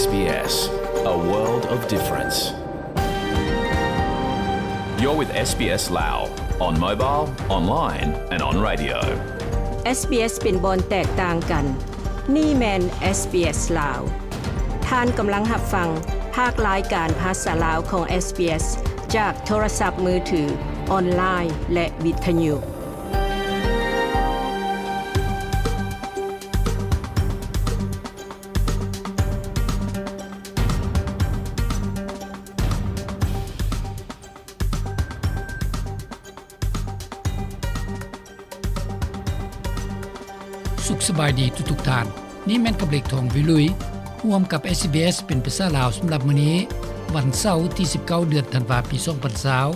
SBS, a world of difference. You're with SBS Lao on mobile, online and on radio. SBS ເປັນບ່ອນແຕກຕ່າງກັນ. ນີ້ແມ່ນ SBS ລາວ. ທ່ານກຳລັງຮັບຟັງພາກລາຍການພາສາລາວຂອງ SBS ຈາກໂທລະສັບມືຖື, ອອນລາຍ ແລະ ວິທະຍຸ. ສຸກສະບາຍດີທຸກໆທ່ານ. ນີ້ແມ່ນກັບເລັກ ທອງວິລຸຍ ຮ່ວມກັບ SBS ເປັນພາສາລາວສຳລັບມື້ນີ້, ວັນເສົາ ທີສິບເກົ້າ ເດືອນທັນວາ ປີສອງພັນຊາວ.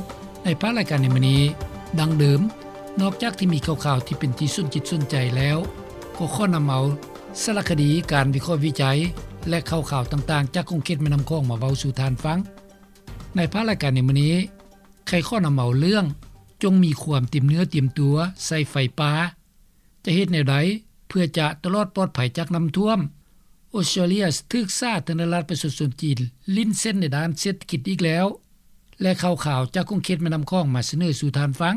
ໃນພາກລາຍການໃນມື້ນີ້, ດັ່ງເດີມ, ນອກຈາກທີ່ມີຂ່າວໆທີ່ເປັນທີ່ສົນຈິດສົນໃຈແລ້ວ, ກໍຂໍນຳເອົາສາລະຄະດີ, ການວິເຄາະວິໄຈ ແລະ ຂ່າວໆຕ່າງໆຈາກຂົງເຂດແມ່ນ້ຳຂອງມາເວົ້າສູ່ທ່ານຟັງ. ໃນພາກລາຍການໃນມື້ນີ້, ໄຄຂໍນຳເອົາເລື່ອງ ຈົ່ງມີຄວາມຕຽມເນື້ອຕຽມຕົວໃສ່ໄຟປ່າ, ຈະເຮັດແນວໃດເພື່ອຈະຕະຫຼອດປອດໄພຈາກນ້ຳຖ້ວມ, ອອສເຕຣເລຍຖືກສາທາລະນະລັດປະຊາຊົນຈີນຫຼິ້ນເສັ້ນໃນດ້ານເສດຖະກິດອີກແລ້ວ ແລະ ຂ່າວໆຈາກຂົງເຂດແມ່ນ້ຳຂອງມາສະເໜີສູ່ທ່ານຟັງ.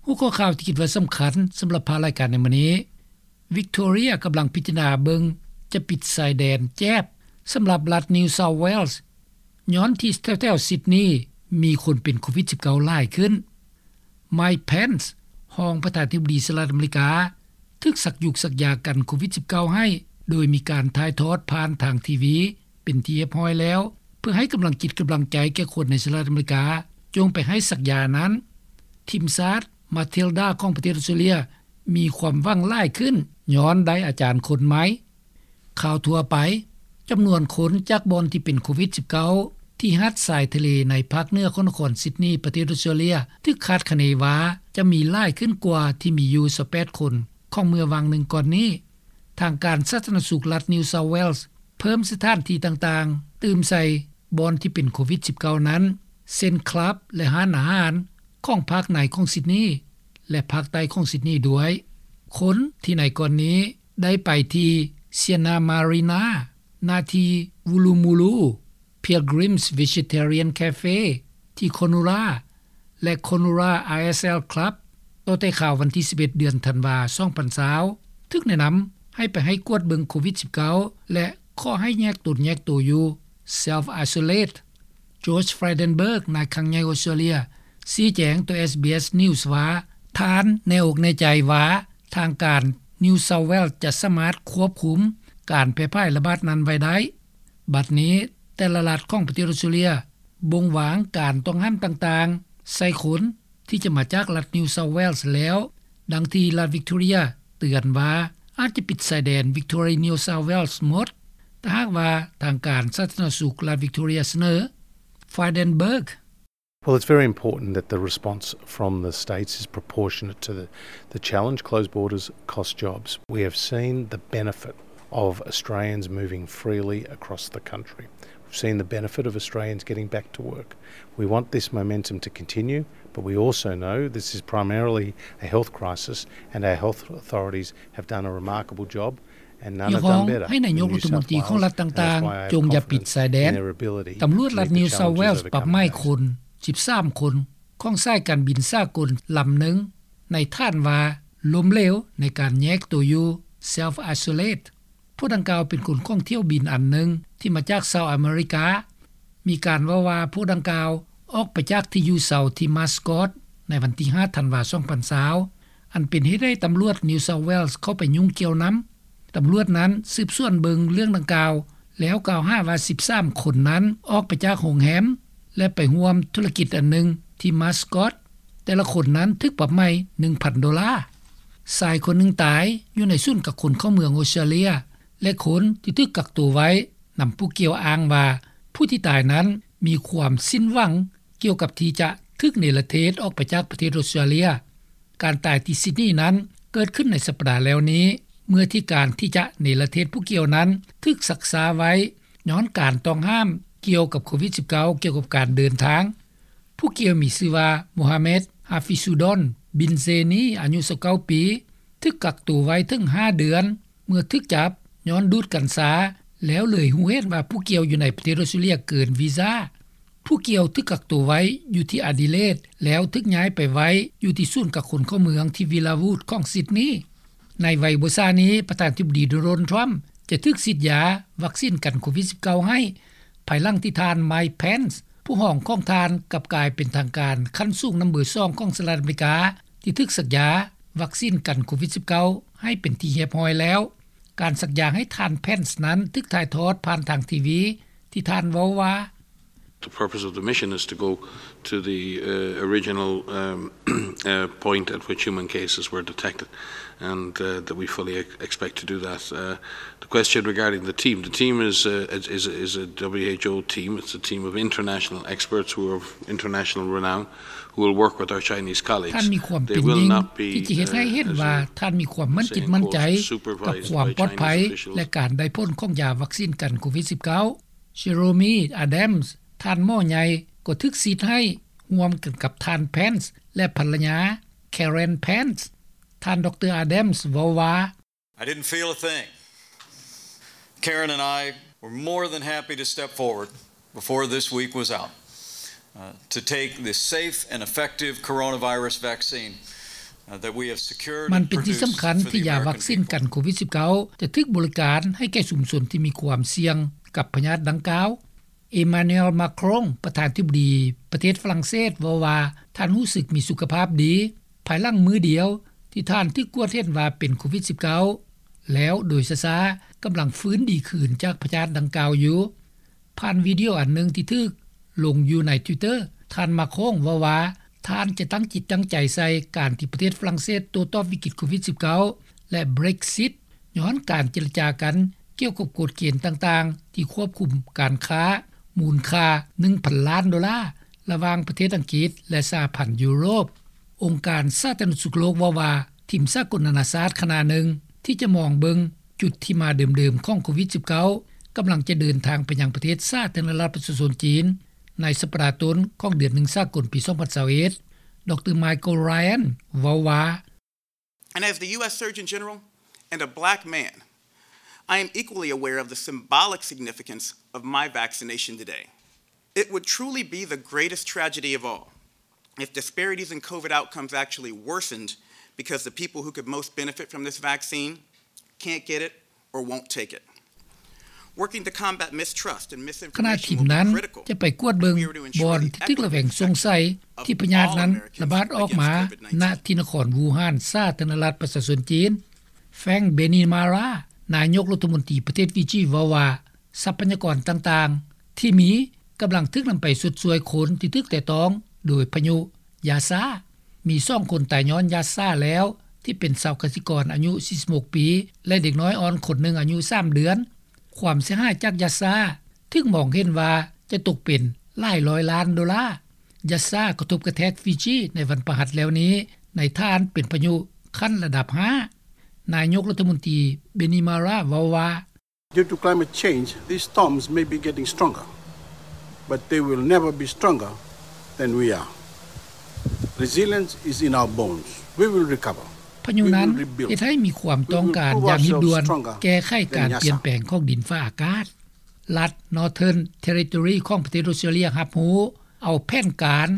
ຫົວຂໍ້ຂ່າວທີ່ຄິດວ່າສຳຄັນສຳລັບພາກລາຍການໃນມື້ນີ້, ວິກໂທເຣຍກຳລັງພິຈາລະນາເບິ່ງຈະປິດຊາຍແດນແຈບສຳລັບລັດ New South Wales ຍ້ອນທີ່ແຖວໆ Sydney ມີຄົນເປັນໂຄວິດສິບເກົ້າຫຼາຍຂຶ້ນ. Mike Pence ຮອງປະທານາທິບໍດີສະຫະລັດອາເມລິກາ ຖືກສັກຢູກສັກຢາກັນໂຄວິດສິບເກົ້າໃຫ້ ໂດຍມີການຖ່າຍທອດຜ່ານທາງທີວີເປັນທີ່ຮຽບຮ້ອຍແລ້ວ ເພື່ອໃຫ້ກຳລັງຈິດກຳລັງໃຈແກ່ຄົນໃນສະຫະລັດອາເມລິກາ ຈົ່ງໄປໃຫ້ສັກຢານັ້ນ. ທີມຊາດ Matilda ຂອງປະເທດອອສເຕຣເລຍ ມີຄວາມຫວັງຫຼາຍຂຶ້ນ ຍ້ອນໄດ້ອາຈານຄົນໃໝ່. ຂ່າວທົ່ວໄປ, ຈຳນວນຄົນຈາກບ່ອນທີ່ເປັນໂຄວິດສິບເກົ້າ ທີ່ຫາດຊາຍທະເລໃນພາກເໜືອຂອງນະຄອນຊິດນີ ປະເທດອອສເຕຣເລຍ ຖືກຄາດຄະເນວ່າຈະມີຫຼາຍຂຶ້ນກວ່າທີ່ມີຢູ່ຊາວແປດຄົນຂອງເມື່ອຫວ່າງໜຶ່ງກ່ອນນີ້. ທາງການສາທາລະນະສຸກລັດ New South Wales ເພີ່ມສະຖານທີ່ຕ່າງໆ ຕື່ມໃສ່ບ່ອນທີ່ເປັນໂຄວິດສິບເກົ້ານັ້ນ ເຊັ່ນ ຄລັບ ແລະ ຮ້ານອາຫານຂອງພາກໃນຂອງຊິດນີ ແລະ ພາກໃຕ້ຂອງຊິດນີດ້ວຍ. ຄົນທີ່ໃນກ່ອນນີ້ໄດ້ໄປທີ່ Sienna Marina, ນາທີ່ Woolloomooloo, Pilgrim's Vegetarian Cafe ທີ່ Cronulla ແລະ Cronulla R S L Club ຕໍ່ແຕ່ຄາວວັນທີສິບເອັດ ເດືອນທັນວາ ສອງພັນຊາວ ຖືກແນະນຳໃຫ້ໄປໃຫ້ກວດເບິ່ງໂຄວິດສິບເກົ້າ ແລະ ຂໍໃຫ້ແຍກຕົນແຍກໂຕຢູ່ Self Isolate. Josh Frydenberg ນາຍຄັງໃຫຍ່ອອສເຕຣເລຍ ຊີ້ແຈງຕໍ່ SBS News ວ່າ ທ່ານແນ່ອົກແນ່ໃຈວ່າທາງການ New South Wales ຈະສາມາດຄວບຄຸມການແຜ່ພາຍລະບາດນັ້ນໄວ້ໄດ້. ບັດນີ້ແຕ່ລະລັດຂອງປະເທດອອສເຕຣເລຍບົ່ງວາງການຕ້ອງຫ້າມຕ່າງໆໃສ່ຄົນທີ່ຈະມາຈາກລັດ New South Wales ແລ້ວ, ດັ່ງທີ່ລັດ Victoria ເຕືອນວ່າອາດຈະປິດຊາຍແດນ Victoria New South Wales ໝົດ ຖ້າຫາກວ່າທາງການສາທາລະນະສຸກລັດ Victoria ສະເໜີ. Frydenberg. Well, it's very important that the response from the states is proportionate to the, the challenge. Closed borders cost jobs. We have seen the benefit of Australians moving freely across the country. We've seen the benefit of Australians getting back to work. We want this momentum to continue, but we also know this is primarily a health crisis, and our health authorities have done a remarkable job. ຮຽກຮ້ອງໃຫ້ນາຍົກລັດຖະມົນຕີຂອງລັດຕ່າງໆ ຈົ່ງຢ່າປິດຊາຍແດນ. ຕຳຫຼວດລັດ New South Wales ປັບໃໝຄົນສິບສາມຄົນຂອງສາຍການບິນສາກົນລຳໜຶ່ງ ໃນຖານວ່າລົ້ມເຫຼວໃນການແຍກໂຕຢູ່ Self Isolate. ຜູ້ດັ່ງກ່າວເປັນຄົນຂອງຖ້ຽວບິນອັນໜຶ່ງທີ່ມາຈາກຊາວອາເມລິກາ. ມີການເວົ້າວ່າຜູ້ດັ່ງກ່າວອອກໄປຈາກທີ່ຢູ່ເຊົາທີ່ Mascot ໃນວັນທີຫ້າ ທັນວາ ສອງພັນຊາວ ອັນເປັນເຫດໃຫ້ຕຳຫຼວດ New South Wales ເຂົ້າໄປຫຍຸ້ງກ່ຽວນຳ. ຕຳຫຼວດນັ້ນສືບສວນເບິ່ງເລື່ອງດັ່ງກ່າວ ແລ້ວກ່າວຫາວ່າສິບສາມຄົນນັ້ນອອກໄປຈາກໂຮງແຮມ ແລະ ໄປຮ່ວມທຸລະກິດອັນໜຶ່ງທີ່ Mascot. ແຕ່ລະຄົນນັ້ນຖືກປັບໃໝໜຶ່ງພັນໂດລາ. ຊາຍຄົນໜຶ່ງຕາຍຢູ່ໃນສູນກັກຄົນເຂົ້າເມືອງອອສເຕຣເລຍ ແລະ ຄົນທີ່ຖືກກັກຕົວໄວ້ນຳຜູ້ກ່ຽວອ້າງວ່າ ຜູ້ທີ່ຕາຍນັ້ນມີຄວາມສິ້ນຫວັງ ກ່ຽວກັບທີ່ຈະຖືກເນລະເທດອອກໄປຈາກປະເທດອອສເຕຣເລຍ. ການຕາຍທີ່ຊິດນີນັ້ນເກີດຂຶ້ນໃນສັບປະດາແລ້ວນີ້ ເມື່ອທີ່ການທີ່ຈະເນລະເທດຜູ້ກ່ຽວນັ້ນຖືກຊັກຊ້າໄວ້ ຍ້ອນການຕ້ອງຫ້າມກ່ຽວກັບໂຄວິດສິບເກົ້າ ກ່ຽວກັບການເດີນທາງ. ໂພ ຜູ້ກ່ຽວມີຊື່ວ່າ ໂມຮາເມັດ ຮາຟິຊູດອນ ບິນເຊນີ ອາຍຸ ຊາວເກົ້າ ປີ ຖືກກັກໂຕໄວ້ເຖິງ ຫ້າ ເດືອນ ເມື່ອຖືກຈັບຍ້ອນດູດກັນຊາ ແລ້ວເລີຍຮູ້ເຫັນວ່າຜູ້ກ່ຽວຢູ່ໃນປະເທດອອສເຕຣເລັຽເກີນວີຊາ. ຜູ້ກ່ຽວຖືກກັກໂຕໄວ້ຢູ່ທີ່ອາດີເລດ ແລ້ວຖືກຍ້າຍໄປໄວ້ຢູ່ທີ່ສູນກັກຄົນເຂົ້າເມືອງທີ່ວິລາວູດຂອງຊິດນີ. ໃນໄວໂວຊານີ້ ປະທານທິບໍດີ ໂດນັລ ທຣຳ ຈະຖືກສີດຢາວັກຊີນກັນໂຄວິດ-19 ໃຫ້ ພາຍຫຼັງທີ່ທ່ານ ໄມ ແພນສ໌ ຜູ້ຮອງຂອງທ່ານ ກັບກາຍເປັນທາງການຂັ້ນສູງນຳເບີສອງຂອງສະຫະລັດອາເມລິກາ ທີ່ຖືກສັກຢາວັກຊີນກັນໂຄວິດ-19 ໃຫ້ເປັນທີ່ຮຽບຮ້ອຍແລ້ວ. ການສັກຢາໃຫ້ທ່ານ ແພນສ໌ ນັ້ນ ຖືກຖ່າຍທອດຜ່ານທາງທີວີ ທີ່ທ່ານເວົ້າວ່າ: The purpose of the mission is to go to the, uh, original, um, uh, point at which human cases were detected, and, uh, that we fully ex-, expect to do that. Uh, the question regarding the team, the team is, uh, is, is, is a W H O team. It's a team of international experts who are of international renown, who will work with our Chinese colleagues. ທ່ານມີຄວາມເປັນຍິ່ງທີ່ຈະເຮັດໃຫ້ເຫັນວ່າ ທ່ານມີຄວາມໝັ້ນຈິດໝັ້ນໃຈກັບຄວາມປອດໄພ ແລະ ການໄດ້ຜົນຂອງຢາວັກຊີນກັນໂຄວິດ-19. ເຈໂຣມີ ອາດັມສ໌ ທ່ານໝໍໃຫຍ່ ກໍຖືກສີດໃຫ້ຮ່ວມກັນກັບທ່ານ ແພນສ໌ ແລະ ພັນລະຍາ ແຄເຣນ ແພນສ໌. ທ່ານ ດຣ ອາດັມສ໌ ເວົ້າວ່າ: I didn't feel a thing. Karen and I were more than happy to step forward before this week was out, uh, to take this safe and effective coronavirus vaccine, uh, that we have secured and produced for the American people. ມັນເປັນສິ່ງສຳຄັນທີ່ຢາວັກຊີນກັນໂຄວິດ-19 ຈະຖືກບໍລິການໃຫ້ແກ່ຊຸມຊົນທີ່ມີຄວາມສ່ຽງກັບພະຍາດດັ່ງກ່າວ. ເອມານູເອລ ມາຄຣອງ ປະທານທິບໍດີປະເທດຝຣັ່ງເສດ ເວົ້າວ່າ ທ່ານຮູ້ສຶກມີສຸຂະພາບດີ ພາຍຫຼັງມື້ດຽວທີ່ທ່ານຖືກກວດເຫັນວ່າເປັນໂຄວິດ-19 ແລ້ວໂດຍຊ້າໆ ກຳລັງຟື້ນດີຄືນຈາກພະຍາດດັ່ງກ່າວຢູ່. ຜ່ານວິດີໂອອັນໜຶ່ງທີ່ຖືກລົງຢູ່ໃນ Twitter ທ່ານ ມາຄຣອງ ເວົ້າວ່າ ທ່ານຈະຕັ້ງຈິດຕັ້ງໃຈໃສ່ການທີ່ປະເທດຝຣັ່ງເສດໂຕ້ຕອບວິກິດໂຄວິດ-19 ແລະ Brexit ຍ້ອນການເຈລະຈາກັນກ່ຽວກັບກົດເກນຕ່າງໆ ທີ່ຄວບຄຸມການຄ້າມູນຄ່າ ໜຶ່ງພັນລ້ານໂດລາ ລະຫວ່າງປະເທດອັງກິດ ແລະ ສະຫະພັນຢູໂຣບ. ອົງການສາທາລະນະສຸກໂລກເວົ້າວ່າ ທີມສາກົນນານາຊາດຄະນະໜຶ່ງ ທີ່ຈະມອງເບິ່ງຈຸດທີ່ມາເດີມໆຂອງໂຄວິດ-19 ກຳລັງຈະເດີນທາງໄປຍັງປະເທດສາທາລະນະລັດປະຊາຊົນຈີນ ໃນສັບປະດາຕົ້ນຂອງເດືອນໜຶ່ງສາກົນປີສອງພັນຊາວເອັດ ດຣ ໄມເຄິນ ຣາຍອັນ ເວົ້າວ່າ: And as the U S Surgeon General and a black man, I am equally aware of the symbolic significance of my vaccination today. It would truly be the greatest tragedy of all if disparities in COVID outcomes actually worsened because the people who could most benefit from this vaccine can't get it or won't take it. Working to combat mistrust and misinformation will be critical if we are to ensure the equitable effectiveness of our vaccine. ຂະນະທີມນັ້ນຈະໄປກວດເບິ່ງບ່ອນທີ່ຖືກລະແວງສົງໄສທີ່ພະຍາດນັ້ນລະບາດອອກມາ ນະທີ່ນະຄອນວູຮານ ສາທາລະນະລັດປະຊາຊົນຈີນ. ແຟຣງ ເບນີມາຣາ ນາຍົກລັດຖະມົນຕີປະເທດຟີຈີ ເວົ້າວ່າ ຊັບພະຍາກອນຕ່າງໆທີ່ມີກຳລັງຖືກນຳໄປຊົດຊ່ວຍຄົນທີ່ຖືກແຕະຕ້ອງໂດຍພະຍຸຢາຊາ. ມີສອງຄົນຕາຍຍ້ອນຢາຊາແລ້ວ ທີ່ເປັນຊາວກະສິກອນອາຍຸສີ່ສິບຫົກປີ ແລະ ເດັກນ້ອຍອ່ອນຄົນໜຶ່ງອາຍຸສາມເດືອນ. ຄວາມເສຍຫາຍຈາກຢາຊາຖືກມອງເຫັນວ່າຈະຕົກເປັນຫຼາຍຮ້ອຍລ້ານໂດລາ. ຢາຊາກະທົບກະແທກຟີຈີໃນວັນພະຫັດແລ້ວນີ້ ໃນຖານເປັນພະຍຸຂັ້ນລະດັບຫ້າ. ນາຍົກລັດຖະມົນຕີ ເບນີມາຣາ ເວົ້າວ່າ: Due to climate change, these storms may be getting stronger, but they will never be stronger than we are. Resilience is in our bones. We will recover. ພະຍຸນັ້ນເຮັດໃຫ້ມີຄວາມຕ້ອງການຢ່າງຮີບດ່ວນແກ້ໄຂການປ່ຽນແປງຂອງດິນຟ້າອາກາດ. ລັດ Northern Territory ຂອງປະເທດອອສເຕຣເລັຽຮັບຮູ້ເອົາແຜນການ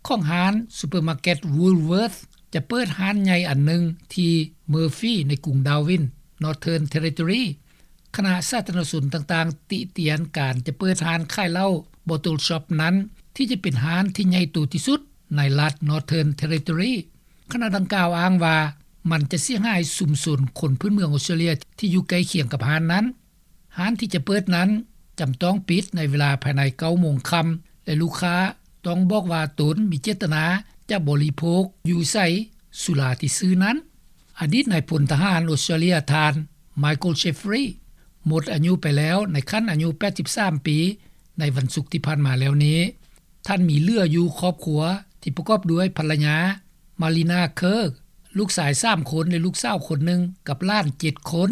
ຂອງຮ້ານຊຸບເປີມາເກັດ Woolworths ຈະເປີດຮ້ານໃຫຍ່ອັນໜຶ່ງທີ່ Murphy ໃນກຸງ Darwin, Northern Territory. ຄະນະສາທາລະນະຊົນຕ່າງໆຕິຕຽນການຈະເປີດຮ້ານຂາຍເຫຼົ້າ Bottle Shop ນັ້ນ ທີ່ຈະເປັນຮ້ານທີ່ໃຫຍ່ໂຕທີ່ສຸດໃນລັດ Northern Territory. ຄະນະດັ່ງກ່າວອ້າງວ່າ ມັນຈະເສຍຫາຍຊຸມຊົນຄົນພື້ນເມືອງອອສເຕຣເລັຽທີ່ຢູ່ໃກ້ຄຽງກັບຮ້ານນັ້ນ. ຮ້ານທີ່ຈະເປີດນັ້ນຈຳຕ້ອງປິດໃນເວລາພາຍໃນເກົ້າໂມງຄ່ຳ ແລະ ລູກຄ້າຕ້ອງບອກວ່າຕົນມີເຈດຕະນາຈະບໍລິໂພກຢູ່ໃສສຸລາທີ່ຊື້ນັ້ນ. ອະດີດນາຍພົນທະຫານອອສເຕຣເລັຽ ທ່ານ Michael Jeffrey ໝົດອາຍຸໄປແລ້ວໃນຂັ້ນອາຍຸແປດສິບສາມປີ ໃນວັນສຸກທີ່ຜ່ານມາແລ້ວນີ້. ທ່ານມີເຫຼືອຢູ່ຄອບຄົວທີ່ປະກອບດ້ວຍພັນລະຍາ ມາລີນາ ເຄີ ລູກຊາຍສາມຄົນ ແລະ ລູກສາວຄົນໜຶ່ງ ກັບຫຼານເຈັດຄົນ.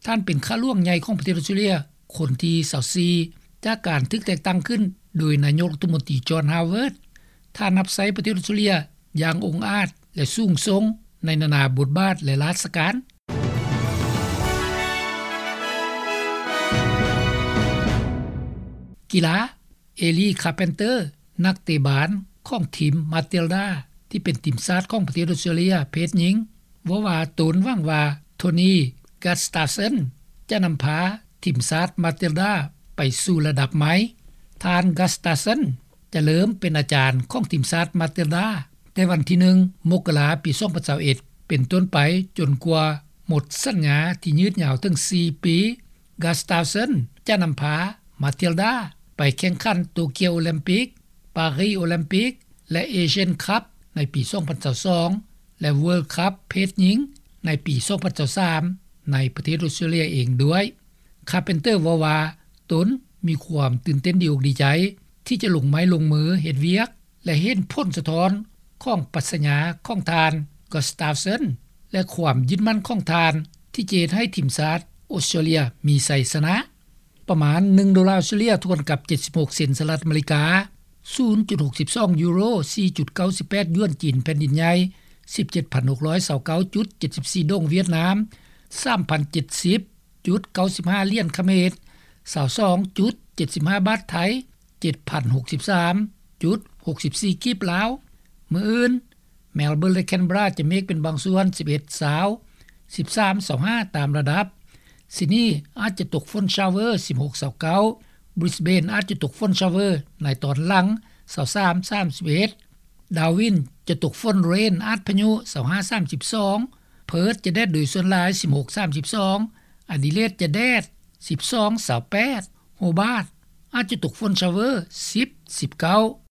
ທ່ານເປັນຂ້າຫຼວງໃຫຍ່ຂອງປະເທດອອສເຕຣເລັຽຄົນທີຊາວສີ່ ຈາກການຖືກແຕ່ງຕັ້ງຂຶ້ນໂດຍນາຍົກລັດຖະມົນຕີ ຈອນ ຮາວເວີດ. ທ່ານຮັບໃຊ້ປະເທດອອສເຕຣເລັຽຢ່າງອົງອາດ ແລະ ສູງສົ່ງໃນນານາບົດບາດ ແລະ ລາຊະການ. ກິລາ ເອລີ ຄາເພັນເຕີ ນັກເຕະບານຂອງທີມມາຕິລດາ ທີ່ເປັນທີມຊາດຂອງປະເທດອອສເຕຣເລັຽເພດຍິງ ເວົ້າວ່າຕົນຫວັງວ່າໂທນີ ກາສຕາເຊັນ ຈະນຳພາທີມຊາດມາຕິລດາໄປສູ່ລະດັບໃໝ່. ທ່ານ ກາສຕາເຊັນ ຈະເລີ່ມເປັນອາຈານຂອງທີມຊາດມາຕິລດາ ແຕ່ວັນທີໜຶ່ງ ມົກກະລາ ປີສອງພັນຊາວເອັດ ເປັນຕົ້ນໄປ ຈົນກວ່າໝົດສັນຍາທີ່ຍືດຍາວເຖິງສີ່ປີ. ກາສຕາເຊັນ ຈະນຳພາມາຕິລດາໄປແຂ່ງຂັນໂຕກຽວໂອລິມປິກ, ປາຣີໂອລິມປິກ ແລະ ເອຊຽນຄັບໃນປີສອງພັນຊາວສອງ ແລະ ເວີລຄັບເພດຍິງໃນປີສອງພັນຊາວສາມ ໃນປະເທດອອສເຕຣເລັຽເອງດ້ວຍ. ຄາເພັນເຕີເວົ້າວ່າ ຕົນມີຄວາມຕື່ນເຕັ້ນດີອົກດີໃຈ ທີ່ຈະລົງໄມ້ລົງມືເຮັດວຽກ ແລະ ເຫັນຜົນສະທ້ອນຂອງປັດຊະຍາຂອງທ່ານ ກາສຕາເຊັນ ແລະ ຄວາມຍຶດໝັ້ນຂອງທ່ານ ທີ່ຈະເຮັດໃຫ້ທີມຊາດອອສເຕຣເລັຽມີໄຊຊະນະ. ປະມານໜຶ່ງໂດລາອອສເຕຣເລັຽ ທວນກັບເຈັດສິບຫົກເຊັນສະຫະລັດອາເມລິກາ, ສູນຈຸດຫົກສິບສອງຢູໂຣ, ສີ່ຈຸດເກົ້າສິບແປດຢວນຈີນແຜ່ນດິນໃຫຍ່, ສິບເຈັດພັນຫົກຮ້ອຍຊາວເກົ້າຈຸດເຈັດສິບສີ່ ດົງຫວຽດນາມ, ສາມພັນເຈັດສິບຈຸດເກົ້າສິບຫ້າຫຼຽນຂະເໝດ, ຊາວສອງຈຸດເຈັດສິບຫ້າບາດໄທ, ເຈັດພັນຫົກສິບສາມຈຸດຫົກສິບສີ່ກີບລາວ. ມື້ອື່ນ ແມລເບີນ ແລະ ແຄນເບຣາ ຈະເມກເປັນບາງສ່ວນ ສິບເອັດ ຊາວ, ສິບສາມ ຊາວຫ້າ ຕາມລະດັບ. ຊິດນີ ອາດຈະຕົກຝົນຊາວເວີ ສິບຫົກ ຊາວເກົ້າ, ບຣິສເບນ ອາດຈະຕົກຝົນຊາວເວີໃນຕອນຫຼັງ ຊາວສາມ ສາມສິບເອັດ, ດາວິນ ຈະຕົກຝົນເຣນອາດພະຍຸ ຊາວຫ້າ ສາມສິບສອງ, ເພີດ ຈະແດດໂດຍສ່ວນຫຼາຍ ສິບຫົກ ສາມສິບສອງ, ອາດີເລດ ຈະແດດ ສິບສອງ ຊາວແປດ, ໂຮບາດ ອາດຈະຕົກຝົນຊາວເວີ ສິບ ສິບເກົ້າ.